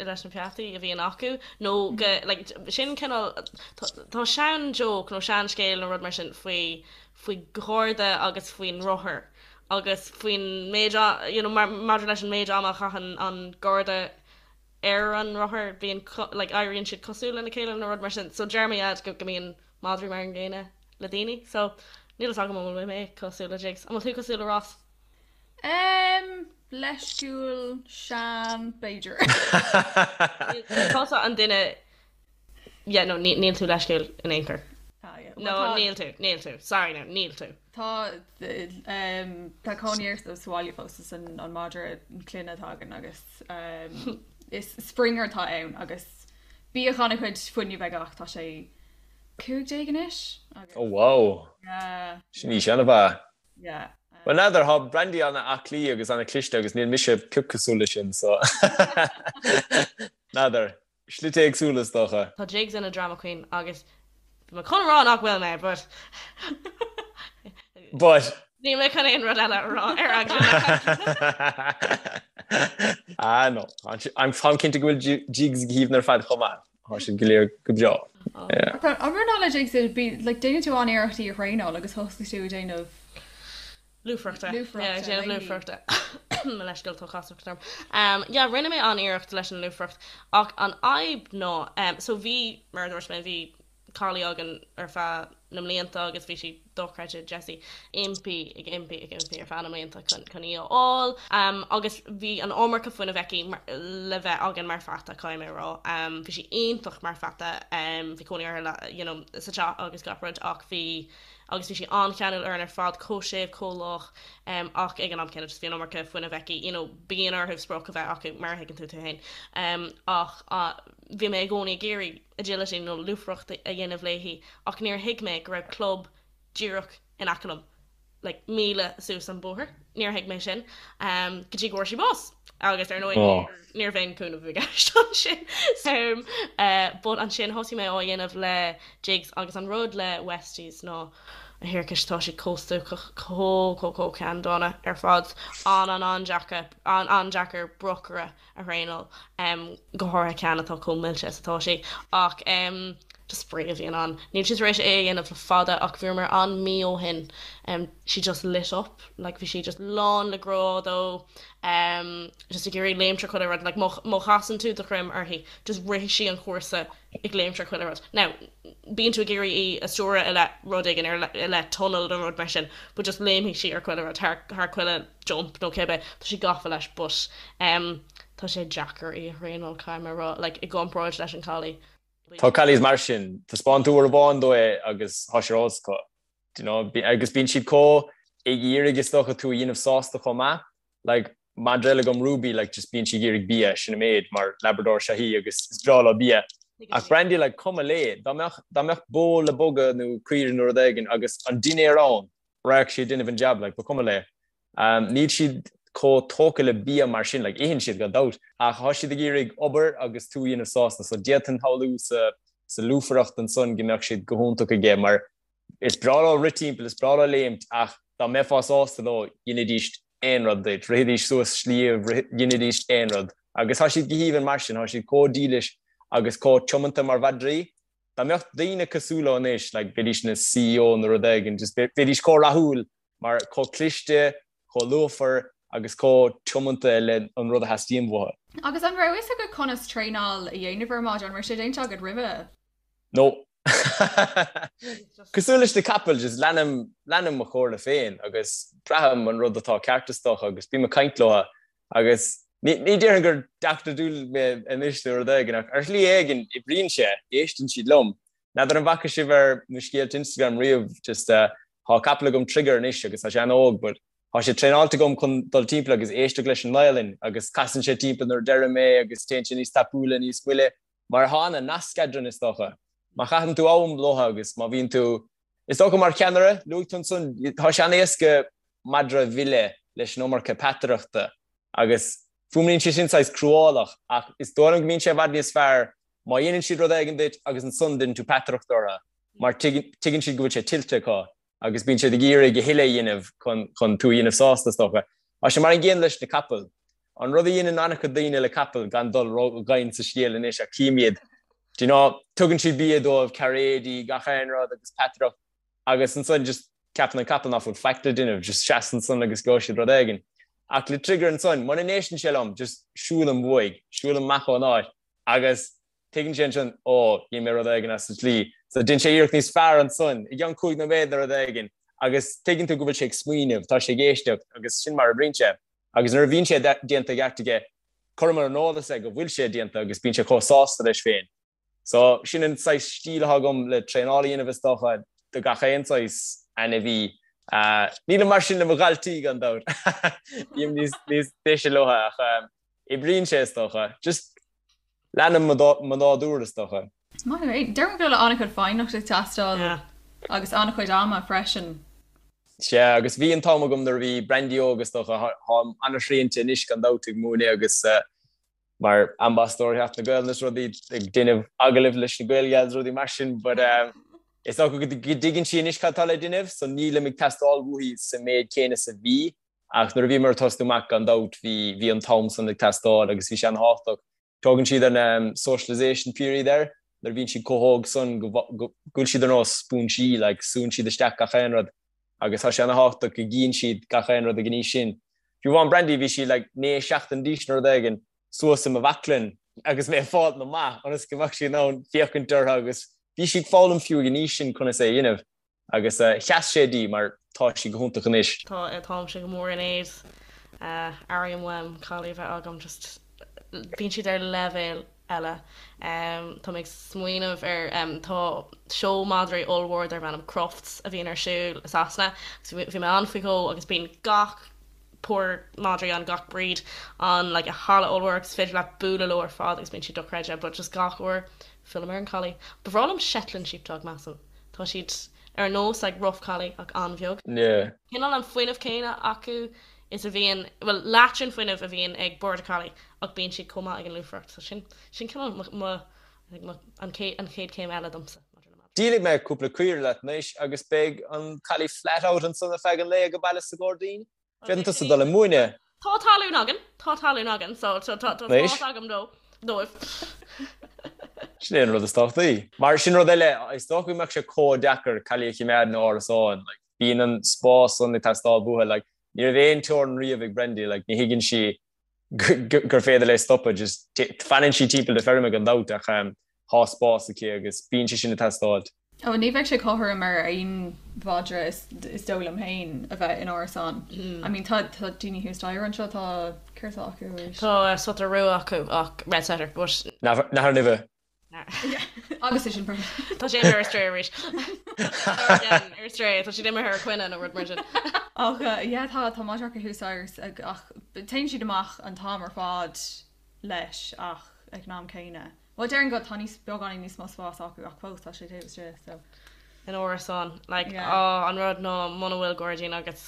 leis na peataí a bhíonn acu nó go, like, sin cineál, tá sean-joke nó sean-scéal nó rud mar sin faoi, faoi gharda agus faoin rothar agus faoin méid, you know, maidir leis an méid ama a chaitheann an garda ar an rothar, bíonn, like, éiríonn siad cosúil lena chéile nó rud mar sin. So deir mo dhaid go mbíonn madraí mar an gcéanna le daoine. So níl fhios agam an bhfuil mé cosúil le Jigs. An bhfuil tú cosúil le Ross? Em, leisciúil, sean, b'fhéidir. Níl tusa an duine Yeah, no, níl tú leisciúil in aon chor. Ah, yeah. No, níl tú, níl tú. Sorry now, níl tú. Tá, tá cónaí air sa bhaile fós is an madra clainne atá againn agus is Springer atá ann agus bíodh an-chuid fuinnimh aige ach tá sé 15 anois agus. Oh wow! Yeah. Sin aois an-mhaith. Yeah. Well n'fheadar, tá Brandy an-aclaí agus an-chliste agus níl mise pioc cosúil leis sin so n'fheadar. Slite éagsúla is dócha. Tá Jigs ina drama queen agus bhí mé chun a rá nach bhfuil mé but But. Níl mé chun aon rud eile a rá ar eagla na. Ah no, táim cinnte go bhfuil Jigs go haoibhinn ar fad chomh maith. Tá siad go léir go breá. An rud ná le Jigs, like déanann tú an-iarracht í a thraenáil agus thosaigh tú ag déanamh Lúfaireachta. Lúfaireachta, Yeah, ag déanamh léi. lúfaireachta. Mo leithscéal, tá casacht orm. Um, yeah, rinne mé an-iarracht leis an lúfaireacht ach an fhadhb ná, um, so bhí, mar a dúirt mé, bhí collie againn ar feadh na mblianta agus bhí sí dochreidte, Jessie, impí, ag impí, ag impí ar feadh na mblianta chun, chun í a fháil. Um, agus bhí an iomarca fuinnimh aici mar, le bheith againn mar pheata, caithfidh mé a rá. Um, bhí sí iontach mar pheata, um, bhí cónaí uirthi le, you know, sa teach agus gach rud ach bhí, agus bhí sí an-cheanúil orainn ar fad, chomh séimh, chomh lách, ach ag an am céanna just bhí an iomarca fuinnimh aici, you know, bíonn orthu sprioc a bheith acu, mar a thuigeann tú tú féin. Ach bhí mé i gcónaí ag iarraidh agility nó lúfaireacht a dhéanamh léi ach níor thuig mé go raibh club díreach in aice liom. like míle suas an bóthar. Níor thuig mé sin go dtí go bhfuair sí bás agus ar ndóigh ní raibh aon cúnamh i gceist ansin. But ansin thosaigh mé á dhéanamh le Jigs agus an rud le Westies ná a thiarcais tá siad chomh stuacach, chomh chomh chomh ceanndána ar fad. An an an-deacair an-deacair brocaire a thraenáil, go háirithe ceann atá chomh millte is atá sí. Ach just spraoi a bhíonn ann. Níl sí tar éis é a dhéanamh le fada ach bhíomar ann mí ó shin. She just lit up, like bhí sí just lán le grá dó, just ag iarraidh léimt ar chuile rud, like má chasann tú do dhroim uirthi, just rithfidh sí an cúrsa ag léimt ar chuile rud. Now, bíonn tú ag iarraidh í a stiúradh i leith rud éigin, i leith tunnel nó rud mar sin, but just léimfidh sí ar chuile rud, thar thar chuile jump nó cibé, tá sí gafa leis but em tá sé deacair í a thraenáil, caithfidh mé a rá, like i gcomparáid leis an collie. Tá collies mar sin, taispeáin tú uair amháin dó é agus tá sé ar eolas acu, do you know, agus bíonn siad chomh ag iarraidh is dócha tú a dhéanamh sásta chomh maith, like madra eile agam Ruby like just bíonn sí ag iarraidh bia sin an méid mar Labrador is ea í agus is breá leo bia ach Brandy like cuma léi dá mbeadh dá mbeadh bó le bogadh nó caoire nó rud éigin agus an dinnéar ann rachadh sí ag déanamh an jab like ba chuma léi um, níl siad chomh tógtha le bia mar sin like itheann siad gan dabht ach tá siad ag iarraidh obair agus tú a dhéanamh sásta so d'fhéadfainn shamhlú sa sa lúfaireacht ansan go mbeadh siad go hiontach aige mar Is breá leo rith timpeall, is breá leo léimt ach dá mbeifeá sásta leo, dheinidís aon rud duit, rithidís suas sliabh, dheinidís aon rud. Agus tá siad go haoibhinn mar sin, tá siad chomh dílis agus chomh tiomanta mar mhadraí. Dá mbeadh daoine cosúil leo anois, like, bheidís ina CEO nó rud éigin, just bheidís chomh rathúil mar chomh cliste, chomh lúfar agus chomh tiomanta le an rud a theastaíonn uathu. Agus an raibh fhios agat conas traenáil a dhéanamh ar madra? An raibh sé déanta agat roimhe? No. Cosúil leis na capaill, just leanaim, leanaim mo chomhairle féin agus braithim an rud atá ceart is dócha agus bím ag caint leo agus ní, ní déarfainn gur Dr. Dolittle mé anois nó rud éigin ach ar shlí éigin oibríonn sé, éisteann siad liom. N'fheadar an bhfaca sibh ar mo scéalta Instagram riamh, just uh, tá capall agam Trigger anois agus tá sé an-óg but tá sé traenáilte agam chun dul timpeall agus éisteacht leis an nGaelainn agus casann sé timpeall nuair a deirim é agus téann sé níos tapúla, níos moille. Mar tá an-nasc eadrainn is dócha. Má chaitheann tú am leo agus má bhíonn tú, is dócha mar cheannaire, luaigh tú ansan, tá sé an-éasca madra a mhilleadh leis an iomarca peataireachta agus fuaimníonn sé sin saghas cruálach ach is dóigh liom go mbíonn sé i bhfad níos fearr. Má dhéanann siad rud éigin duit agus ansan déanann tú peataireacht orthu mar tuigeann siad go bhfuil sé tuillte acu agus bíonn siad ag iarraidh a thuilleadh a dhéanamh chun tú a dhéanamh sásta is dócha. Tá sé mar an gcéanna leis na capaill. An rud a dhéanann an-chuid daoine le capaill, gan dul ró-dhoimhin sa scéal anois ach cím iad, do you know, tugann siad bia dóibh, cairéidí, gach aon rud agus peataireacht agus ansan just ceapann an capall ná fuil faic le déanamh, just seas ansan agus gheobhaidh siad rud éigin. Ach le Trigger ansan, muna n-éisteann sé liom, just siúlaim uaidh, siúlaim amach ón áit agus tuigeann sé ansin, ó, dhein mé rud éigin as an tslí. So déanann sé iarracht níos fearr ansan, i gceann 5 nóiméad nó rud éigin, agus tuigeann tú go bhfuil sé ag smaoineamh, tá sé ag éisteacht agus sin mar a oibríonn sé. Agus nuair a bhíonn sé déanta i gceart aige, cuirim ar an eolas é go bhfuil sé déanta agus bíonn sé chomh sásta leis féin. So, sin an saghas stíl atá agam le traenáil a dhéanamh is dócha, do gach aon saghas ainmhí. Nílim mar sin le mo dhaltaí gan dabht. Bím níos deise leo ach oibríonn sé is dócha. Just leanaim mo nádúr is dócha. Maith thú. Deirim go bhfuil an-chuid foighneachta ag teastáil agus an-chuid ama freisin. Sea, agus bhí an t-am agam nuair a bhí Brandy óg is dócha, táim an-srianta anois gan dabht ag múineadh agus mar ambasadóir Sheachtain na Gaelainne is rudaí, ag déanamh agallaimh leis na Gaelgals is rudaí mar sin but is dócha go dtuigeann sí anois cad tá le déanamh so nílim ag teastáil uaithi sa méid céanna is a bhí ach nuair a bhíomar ag tosnú amach gan dabht bhí bhí an t-am san ag teastáil agus bhí sé an-thábhachtach. Tugann siad an socialisation period air nuair a bhíonn siad chomh hóg san go bhfuil siad ar nós spúinsí like súnn siad isteach gach aon rud agus tá sé an-thábhachtach go gcíonn siad gach aon rud ag an aois sin. Fiú amháin Brandy bhí sí like 9 seachtain d'aois nó rud éigin suas i mo bhaclainn agus mé ag fáilt amach ionas go mbeadh sí in ann féachaint orthu agus bhí sí ag foghlaim fiú ag an aois sin conas é a dhéanamh. Agus sheas sé di mar tá sí go hiontach anois. Tá, táimse go mór in éad. Airím uaim collie a bheith agam, just bíonn siad ar leibhéal eile. Tá mé ag smaoineamh ar, tá seó madraí ollmhór darb ainm Crufts a bhíonn ar siúl i Sasana agus bhí mé ann faoi dhó agus bíonn gach pór madraí ann, gach breed ann like i halla ollmhór agus is féidir leat bualadh leo ar fad agus bíonn siad dochreidte but just gach uair fillim ar an collie. Ba bhreá liom Shetland sheepdog measaim. Tá siad ar nós like rough collie ach an-bheag. Yeah. Cineál an fuinneamh céanna acu is a bhíonn, bhuel leath den fuinneamh a bhíonn ag border collie ach bíonn siad chomh maith ag an lúfaireacht. So sin, sin cineál mo, mo, I think mo, an chéad, an chéad chéim eile domsa maidir le madraí. Díolfaidh mé cúpla caora leat anois agus beidh an collie flat out ansan ar feadh an lae age baile sa ghairdín. Féadann tusa dul ag múineadh. Tá talún againn, tá talún againn, so tá spás agam dó, dóibh. Sin é an rud is tábhachtaí. Mar sin rud eile, is dócha go mbeadh sé chomh deacair collie a choimeád in árasán. Like, bíonn an spás san ag teastáil uathu. Like, ní raibh aon teorainn riamh ag Brandy, like, ní thuigeann sí gur féidir léi stopadh, just fanann sí timpeall na feirme gan dabht ach tá spás aici agus bíonn sé sin ag teastáil. Ó, ní bheadh sé cothrom ar aon mhadra is dóigh liom féin a bheith in árasán. I mean tá daoine thuas staighre anseo, tá, céard atá acu arís? Tá setter rua acu ach red setter but. Nathair Nimhe. Agus é sin Tá sé imithe ar strae arís. Ar strae, tá siad imithe ar coinne nó rud mar sin. Ach yeah tá tá madra acu thuas staighre ach téann siad amach an t-am ar fad leis ach ag an am céanna. Bhuel déarfainn go tá níos beagáinín níos mó spás acu ach fós tá sé taobh istigh so. In árasán like yeah. Oh, an rud ná muna bhfuil gairdín agat.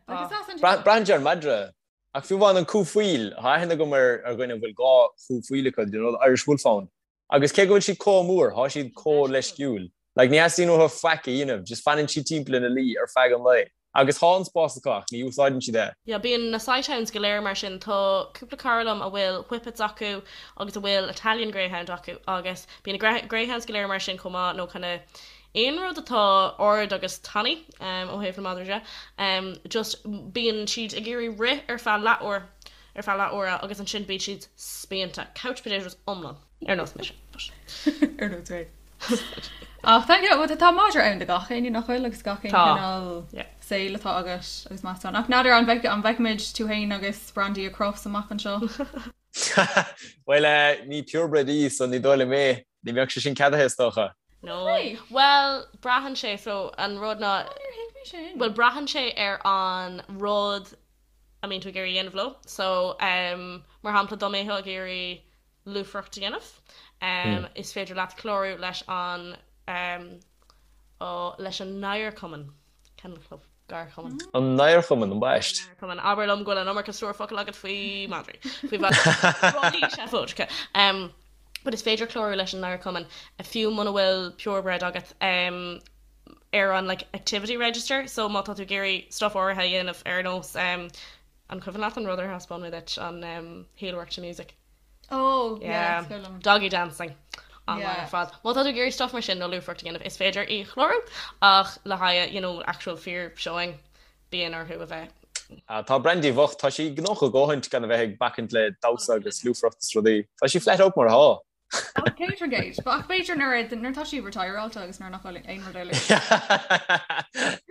Like, is as an Braitheann sé ar an madra. Ach fiú amháin an cú faoil, tá aithne agam ar dhuine a bhfuil dhá chú faoil acu, you know, the Irish Wolfhound. Agus cé go bhfuil siad chomh mór, tá siad chomh leisciúil. Like, ní theastaíonn uathu faic a dhéanamh, just fanann siad timpeall ina luí ar feadh an lae. Agus tá an spás acu ach ní úsáideann siad é. Yeah, bíonn na sighthounds go léir mar sin. Tá cúpla cara liom a bhfuil whippets acu agus a bhfuil Italian Greyhound acu agus bíonn na greyhounds go léir mar sin chomh maith nó kinda aon rud atá ard agus tanaí ó thaobh na madraí de. Just bíonn siad ag iarraidh rith ar feadh leathuair, ar feadh leathuaire agus ansin bíonn siad spíonta. Couch potatoes iomlán. Ar nós mise. Ar nós mé. Ach tá yeah, tá madra ann do gach éinne nach bhfuil agus gach aon cineál saoil atá agat agus meastán. Ach n'fheadar an bhfeicfimid tú féin agus Brandy ag Crufts amach anseo? Bhuel, ní purebred í so ní dóigh liom é. Ní bheadh sé sin ceadaithe is dócha. No. Bhuel, braitheann sé, so an rud ná, bhuel braitheann sé ar an rud a mbíonn tú ag iarraidh a dhéanamh leo. So, mar shampla, dá mbeifeá ag iarraidh lúfaireacht a dhéanamh, is féidir leat clárú leis an, leis an nGadharchumann, Kennel Club. Gadharchumann. An nGadharchumann, ambaist. Cumann. Abair liom go bhfuil an iomarca stór focal agat faoi madraí. Faoi mhadraí. Rudaí seafóideacha. But is féidir clárú leis an Chumann fiú muna bhfuil purebred agat um, ar an like, activity register, so má tá tú ag iarraidh stuff áirithe a dhéanamh ar nós um, an cuimhin leat an rud ar thaispeáin mé duit an um, heelwork to music. Oh, yeah, yeah. Doggy dancing. An-mhaith ar fad. Má tá tú ag iarraidh stuff mar sin nó lúfaireacht a dhéanamh, is féidir í chlárú ach le haghaidh you know, actual fíor showing bíonn orthu a bheith. Tá Brandy bhocht, tá sí gnóthach a dhóthaint gan a bheith ag bacaint le damhsa agus lúfaireacht is rudaí. Tá sí flat out mar atá. 100%. Ach b'fhéidir nuair nuair atá sí retireáilte agus nuair nach bhfuil aon rud eile.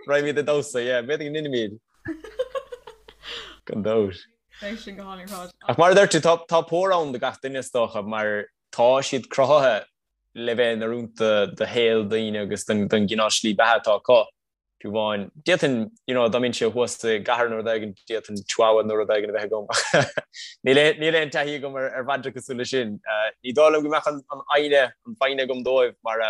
Raghaimid ag damhsa, yeah, b'fhéidir go ndéanfaimid. Gan dabht. Beidh sin go hálainn ar fad. Ach mar a deir tú, tá tá pór ann do gach duine is dócha mar tá siad cruthaithe le bheith in oiriúint do do shaol daoine agus don don gcineál slí beatha atá acu. Fiú amháin, d'fhéadfainn, you know, dá mbeinnse thuas i gcathair nó rud éigin, d'fhéadfainn chihuahua nó rud éigin a bheith agam. Níl aon, níl aon taithí agam ar, ar mhadra cosúil leis sin. Ní dóigh liom go mbeadh an, an fhoighne, an fhoighne agam dóibh mar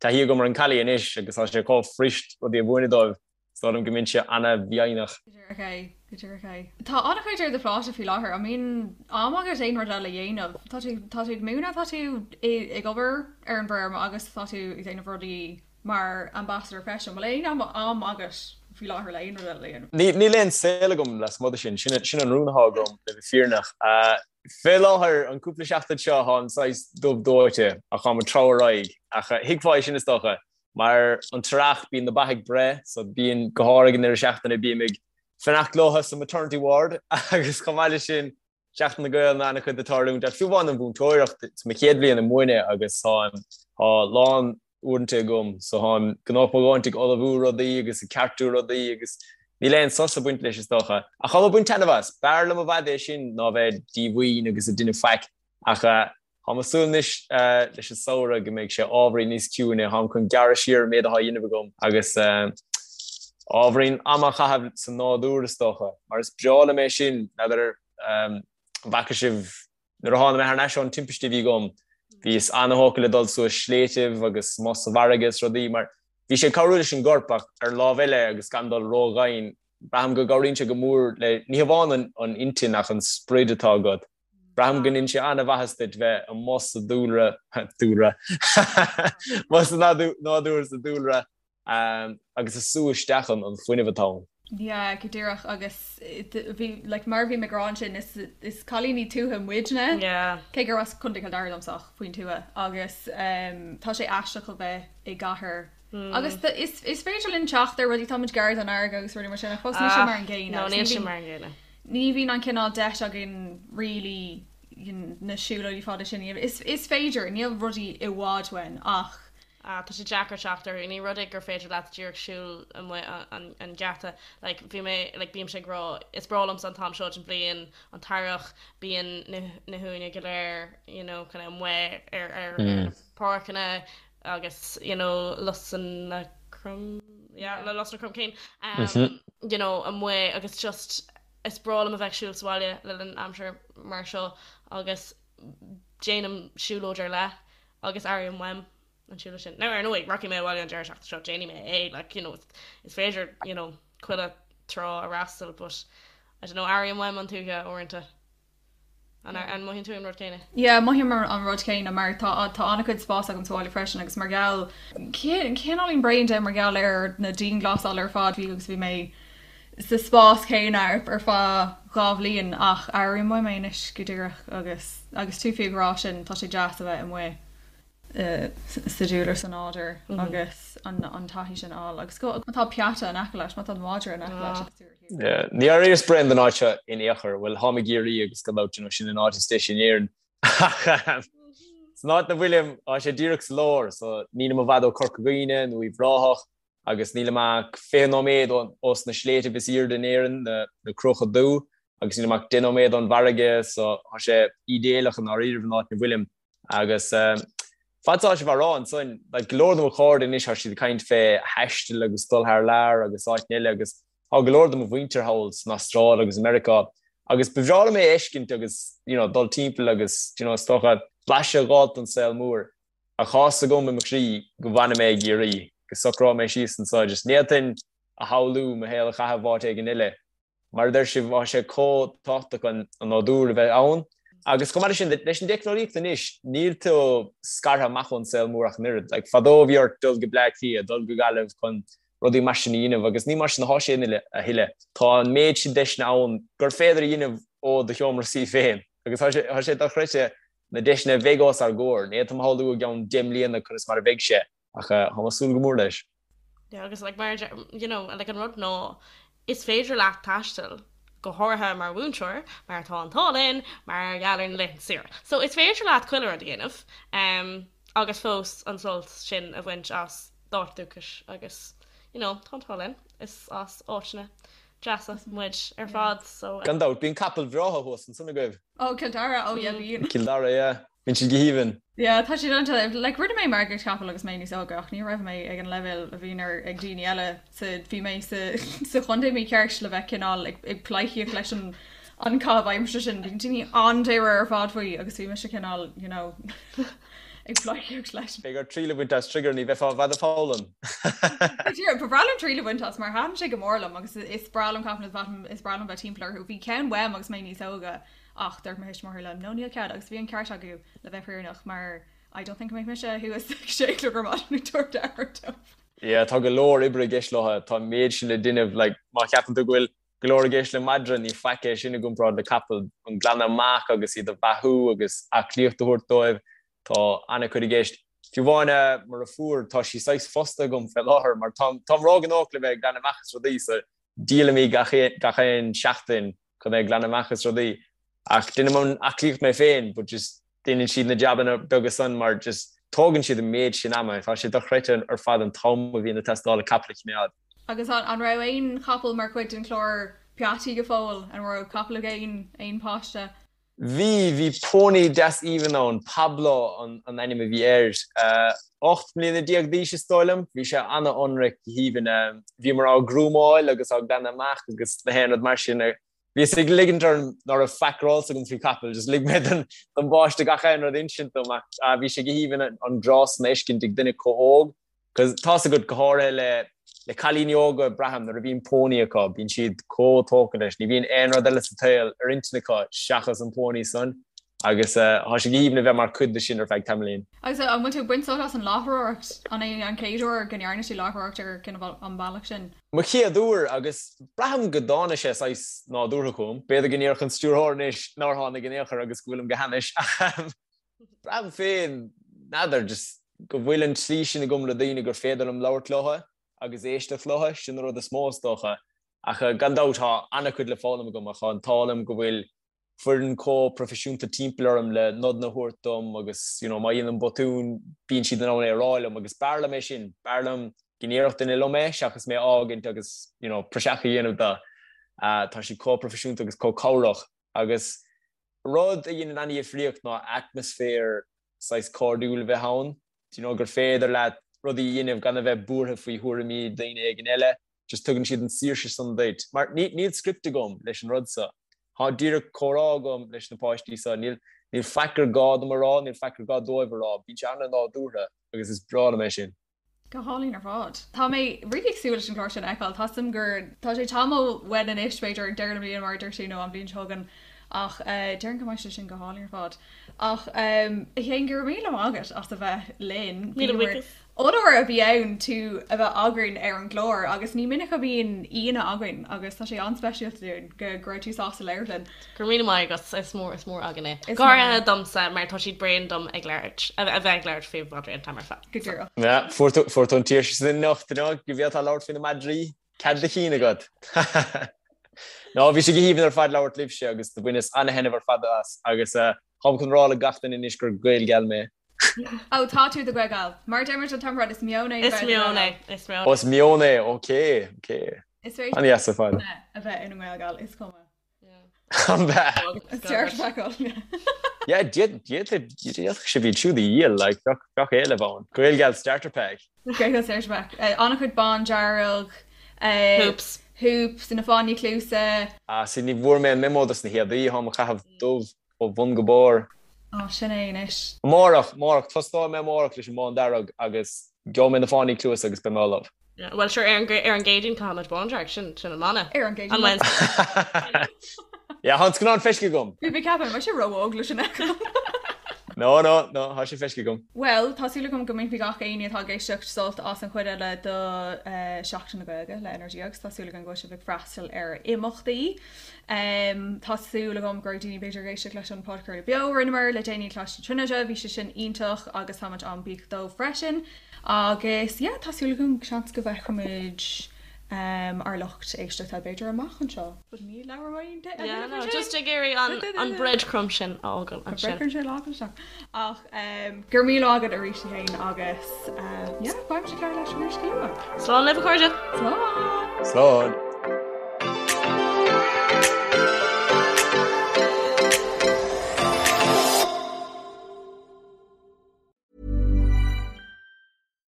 taithí agam ar an collie anois agus tá sé chomh fuirist rudaí a mhúineadh dóibh. Is dóigh liom go mbeinnse an-mhaoithneach. Go díreach é, go díreach é. Tá an-chuid ar do phláta faoi láthair. An mbíonn am agat aon rud eile a dhéanamh? Tá tú, tá tú ag múineadh, tá tú ag obair ar an bhfeirm agus tá tú ag déanamh rudaí mar ambassador freisin. Bhfuil aon am agat faoi láthair le aon rud eile a dhéanamh? Níl aon saol agam lasmuigh de sin. Sin an rún atá agam, le bheith fírinneach. Fé láthair, an cúpla seachtain seo, táim saghas dubh dóite ach táim ag treabhadh ar aghaidh. Ach thuigfeá é sin, is dócha, mar an t-earrach, bíonn na ba ag breith, so bíonn, go háirithe ag an deireadh seachtaine, bím ag fanacht leo sa maternity ward agus chomh maith leis sin, Seachtain na Gaelainne an-chuid ag tarlúint ach fiú amháin an mhúinteoireacht, is mo chéad bhliain ag múineadh agus táim, tá a lán uaireanta agam so táim gnóthach mo dhóthaint ag ullmhú rudaí agus ag ceartú rudaí agus níl aon sos ag baint leis is dócha. Ach táim ag baint taitneamh as. B'fhearr liom i bhfad é sin ná bheith díomhaoin agus ag déanamh faic ach táim ag súil anois leis an samhradh go mbeidh sé ábhairín níos ciúine, táim chun gearradh siar an méid atá á dhéanamh agam agus ábhairín ama a chaitheamh sa nádúr is dócha, mar is breá liom é sin, n'fheadar an bhfaca sibh nuair a tháinig mé thar n-ais ón timpiste a bhí agam, bhíos an-thógtha le dul suas sléibhtibh agus amuigh sa bhfarraige is rudaí mar bhí sé ag cabhrú leis an gcorp ach ar an lámh eile agus gan dul ródhomhain, braithim go gcabhraíonn sé go mór le, ní hamháin an intinn ach an sprid atá agat. Braithim go ndéanann sé an-mhaitheas duit bheith amuigh sa dúlra, dúlra, amuigh sa nádúr, sa dúlra, agus ag sú isteach an fuinneamh atá ann. Yeah, go díreach agus bhí, like, mar a bhí mé ag rá ansin, is, is cailíní tuaithe muidne, Yeah. cé gur as Contae Chill Dara domsa ach faoin tuath agus tá sé aisteach a bheith i gcathair agus is, is féidir linn teacht ar rudaí, táimid gar don fharraige agus rudaí mar sin ach fós níl sé mar an gcéanna No, níl sé mar an gcéanna. Ní bhíonn an cineál deis againn really na siúlóidí fada sin a dhéanamh. Is, is féidir, níl rudaí i bhfad uainn ach. Ah, tá sé deacair teacht orthu. Ní rud é gur féidir leat díreach siúl amuigh an, an geata. Like, bhí mé, like, bímse ag rá, is breá liomsa an t-am seo den bhliain, an t-earrach, bíonn na, na huain go léir, you know, kind of amuigh ar, ar, ar na páirceanna agus, you know, lusanna crom, yeah, le lusanna cromchinn, um, you know, amuigh agus just is breá liom a bheith ag siúl sa bhaile le linn aimsir mar seo agus déanaim siúlóid ar leith agus airím uaim an siúlóid sin. Now ar ndóigh, rachaidh mé abhaile an deireadh seachtaine seo, déanfaidh mé é, like, you know, is féidir, you know, chuile trá a fhreastal, but I don't know, airím uaim an tuaithe uaireanta. An an mothaíonn tú an rud céanna? Yeah, mothaím an rud céanna mar tá tá an-chuid spás agam sa bhaile freisin agus mar gheall cineáilín bréan de mar gheall ar na dianghlasáil ar fad bhí agus bhí mé sa spás céanna ar ar feadh 2 bhliain ach airím uaim é anois go díreach agus agus tú fiú ag rá sin tá sé deas a bheith amuigh sa dúlra sa nádúr agus an taithí sin a fháil agus go má tá peata in aice leat, má tá madra in aice leat agus tú ar shiúl. Ní airíos bréan den áit seo in aon chor. Bhuel, táim i gCiarraí agus gan dabht, you know, sin an áit is deise in Éirinn. Ach san áit 'na bhfuilim, tá sé díreach sa lár, so nílim i bhfad ó Corca Dhuibhne nó Uíbh Ráthach agus nílim ach 20 nóiméad ós na sléibhtibh is aoirde in Éirinn, na Cruacha Dubha, agus nílim ach 10 nóiméad ón bhfarraige, so tá sé ídéalach i ndáiríribh an áit 'na bhfuilim. Agus fad is atá sibh á rá ansan, like, go leor de mo chairde anois tá siad ag caint fé thaisteal agus dul thar lear agus áiteanna eile agus tá go leor de mo mhuintir thall san Astráil agus i Meiriceá agus ba bhreá liom é a fheiscint agus, you know, dul timpeall agus, you know, is dócha blaiseadh a dh'fháilt den saol mór. Ach tá 'fhios agam i mo chroí go bhfanfaidh mé i gCiarraí, go socróidh mé síos anso, just ní fhéadfainn a shamhlú mo shaol a chaitheamh áit éigin eile. Mar a deir sibh, tá sé chomh tábhachtach an nádúr a bheith ann. Agus chomh maith leis sin, leis an dteicneolaíocht anois, níl tú scartha amach ón saol mór ach an oiread. Like, fadó bhí ort dul go Bleá Cliath, dul go Gaillimh chun rudaí mar sin a dhéanamh agus ní mar sin atá sé a thuilleadh. Tá an méid sin deiseanna ann gur féidir a dhéanamh ó do sheomra suí féin agus tá sé, tá sé dochreidte na deiseanna a bheidh os ár gcomhair. Ní fhéadfainn a shamhlú i gceann 10 mbliana conas mar a bheidh sé ach tá mé ag súil go mór leis. Yeah, agus like mar you know, like an rud ná is féidir leat taisteal go háirithe mar mhúinteoir mar tá an t-ádh linn mar gheall ar na laethanta saoire. So is féidir leat chuile rud a dhéanamh um, agus fós an sult sin a bhaint as d'áit dúchais agus you know, tá an t-ádh linn is as áiteanna deasa muid ar fad so. Gan dabht, bíonn capaill bhreátha thuas ansan agaibh. Oh, Cill Dara, oh yeah bíonn. Cill Dara, yeah. Bíonn siad go haoibhinn. Yeah, tá siad iontach, like rinne mé margaíocht capall agus mé níos óige ach ní raibh mé ag an leibhéal a bhíonn ar ag daoine eile sa bhí mé sa sa chontae mícheart le bheith cineál ag ag pleidhcíocht leis an an caitheamh aimsire sin. Bíonn daoine an-dáiríre ar fad faoi agus bhí mise cineál you know ag pleidhcíocht leis. Beidh ort triail a bhaint as Trigger, ní bheifeá i bhfad ag foghlaim. Ba bhreá liom triail a bhaint as mar thaitin sé go mór liom agus is breá liom capaill is breá liom bheith timpeall orthu. Bhí ceann uaim agus mé níos óige ach dúirt mo thuismitheoirí liom no níl cead agus bhí an ceart acu le bheith fírinneach mar I don't think go mbeadh mise thuas ag sé a chlog ar maidin ag tabhairt aire dóibh. Yeah, tá go leor oibre i gceist leo, tá an méid sin le déanamh, like má cheapann tú go bhfuil go leor i gceist le madra, ní faic é sin i gcomparáid le capall, an glanadh amach agus iad a bheathú agus aclaíocht a thabhairt dóibh, tá an-chuid i gceist. Fiú amháin mo dheirfiúr, tá sí saghas fostaithe agam fé láthair mar táim róghnóthach le bheith ag glanadh amach is rudaí so díolaim í gach aon seachtain chun bheith ag glanadh amach is rudaí. Ach déanaim an aclaíocht mé féin but just déanann siad na jabanna beaga san mar just tógann siad an méid sin ama. Tá sé dochreidte ar fad an t-am a bhíonn ag teastáil le capall a choimeád. Agus an raibh aon chapall mar chuid den chlár Peataí go fóill? An raibh capall ag aon aon páiste? Bhí, bhí pónaí deas aoibhinn ann, Pablo an ainm a bhí air. 18 mbliana d'aois is dóigh liom. Bhí sé an-ionraic, go haoibhinn. Bhíomar á ghrúmáil agus á glanadh amach agus na haon rud mar sin. Bhíos ag ligint orm ná raibh faic ar eolas agam faoi chapaill, just lig mé don bpáiste gach aon rud a insint dom ach bhí sé go haoibhinn an grá san a fheiscint ag duine chomh hóg cos tá's agat go háirithe le le cailíní óga braithim nuair a bhíonn pónaí acu bíonn siad chomh tógtha leis, ní bhíonn aon rud eile sa tsaol ar intinn acu seachas an pónaí san agus tá sé go haoibhinn a bheith mar chuid de sin ar feadh tamaillín. Agus an bhfuil tú ag baint sult as an láithreoireacht? An é an chéad uair go ndearna tú láithreoireacht ar cineál an bealach sin? Mo chéad uair agus braithim go dtáinig sé saghas nádúrtha chugam. B'fhéidir go ndéarfadh an stiúrthóir anois nár tháinig in aon chor agus go bhfuilim go hainnis ach braithim féin, n'fheadar, just go bhfuil an tslí sin agam le daoine gur féidir liom labhairt leo agus éisteacht leo, sin an rud is mó is dócha. Ach gan dabht tá an-chuid le foghlaim agam ach tá an t-ádh liom go bhfuil foireann chomh proifisiúnta timpeall orm le nodanna a thabhairt dom agus you know má dhéanaim botún bíonn siad in ann é a rá liom agus b'fhearr liom é sin, b'fhearr liom go ndéarfadh duine liom é seachas mé a fhágaint agus you know praiseach a dhéanamh de. Tá siad chomh proifisiúnta agus chomh cabhrach agus rud a dhéanann an-difríocht ná atmaisféar saghas cairdiúil a bheith ann, do you know gur féidir leat rudaí a dhéanamh gan a bheith buartha faoi thuairimí daoine éigin eile. just tugann siad an saoirse san duit, mar níl script agam leis an rud so. Tá díreach comhrá agam leis na páistí so, níl níl faic gur gá dom a rá, níl faic gur gá dóibh a rá, bíonn sé an-nádúrtha agus is breá liom é sin. Go hálainn ar fad. Tá mé really ag súil leis an chlár sin a fheiceáil. Tá 'fhios a'm gur tá sé tamall uainn anois, b'fhéidir ag deireadh na bliana mar a dúirt tú nó an bhliain seo chugainn ach déarfainn go mbeidh sé sin go hálainn ar fad. Ach a Shéain, go raibh míle maith agat as a bheith linn. Míle buíochas. Onóir a bhí ann tú a bheith againn ar an gclár agus ní minic a bhíonn aíonna againn agus tá sé an-speisialta dúinn go go raibh tú sásta labhairt linn. Go raibh míle maith agat, is mór is mór againn é. Go háirithe domsa mar tá siad bréan dom ag labhairt, a bheith ag labhairt faoi mhadraí an t-am ar fad. Go díreach. Yeah, fuair tú fuair tú an tsaoirse sin anocht, you know, go bhféadfá labhairt faoi na madraí, cead do chinn agat. No, bhí sé go haoibhinn ar fad labhairt libhse agus do bhaineas an-thaitneamh ar fad as agus táim chun rá le gach duine anois gur Gaelgal mé. Ó, tá tú i do Ghaelgal. Mar a deir muid an t-am ar fad, is meon é a Is bheith i do meon Ghaelgal. é, is meon Ó, is meon é, ok, ok. Is féidir An-dheas ar fad. a bheith ina nGaelgal, is cuma. An bheith. Is dearc feiceáil. Yeah, d'fhéadfadh sibh iad siúd a dhíol, like, bheadh, bheadh éileamh ann. Gaelgal starter pack. Gaelgal starter pack. An-chuid bándearg. Hoops. Hoops, na fáinní cluasa. Ah, see, ní bhfuair mé an memo dos na héadaí, táim ag caitheamh dubh. Ó bhun go barr. Á, sin é anois. Amárach, amárach, tosnóidh mé amárach leis an mbándearg agus gheobhaidh mé na fáinní cluasa agus beidh mé ullamh. Bhuel, sure, ar an, ar an gCéadaoin caithfimid bándearg, sin, sin an mana. Ar an gCéadaoin. An Wednesday. Yeah, tá an scannán feiscithe agam. Bhí mé ag ceapadh, an mbeidh sé ró-óg leis sin a fheiceáil? No, no, no, tá sé feiscithe agam. Bhuel, tá súil agam go mbainfidh gach éinne atá ag éisteacht sult as an chuid eile de Seachtain na Gaeilge le Energia agus tá súil agam go bhfuil sibh ag freastal ar imeachtaí. Tá súil agam go raibh daoine b'fhéidir ag éisteacht leis an podchraoladh beo a rinneamar le déanaí i Coláiste na Tríonóide, bhí sé sin iontach agus táimid an-bhuíoch dóibh freisin. Agus yeah, tá súil agam seans go bhfeicfimid ár lucht éisteachta b'fhéidir amach anseo. But ní labhróidh mé Yeah, no, just ag iarraidh an an breadcrumb sin a fhágáil ansin. Breadcrumb sin a fhágáil isteach. Ach go raibh míle maith agat arís a Shéain agus yeah, beidh muid ag labhairt leat arís go luath. Slán libh a chairde! Slán! Slán!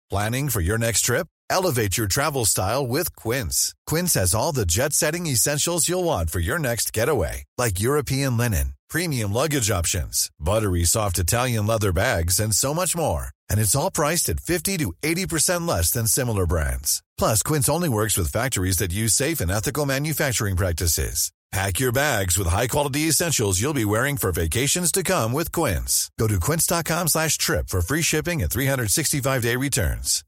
Planning for your next trip? Elevate your travel style with Quince. Quince has all the jet setting essentials you'll want for your next getaway, like European linen, premium luggage options, buttery soft Italian leather bags, and so much more. And it's all priced at 50 to 80% less than similar brands. Plus, Quince only works with factories that use safe and ethical manufacturing practices. Pack your bags with high-quality essentials you'll be wearing for vacations to come with Quince. Go to quince.com slash trip for free shipping and 365-day returns.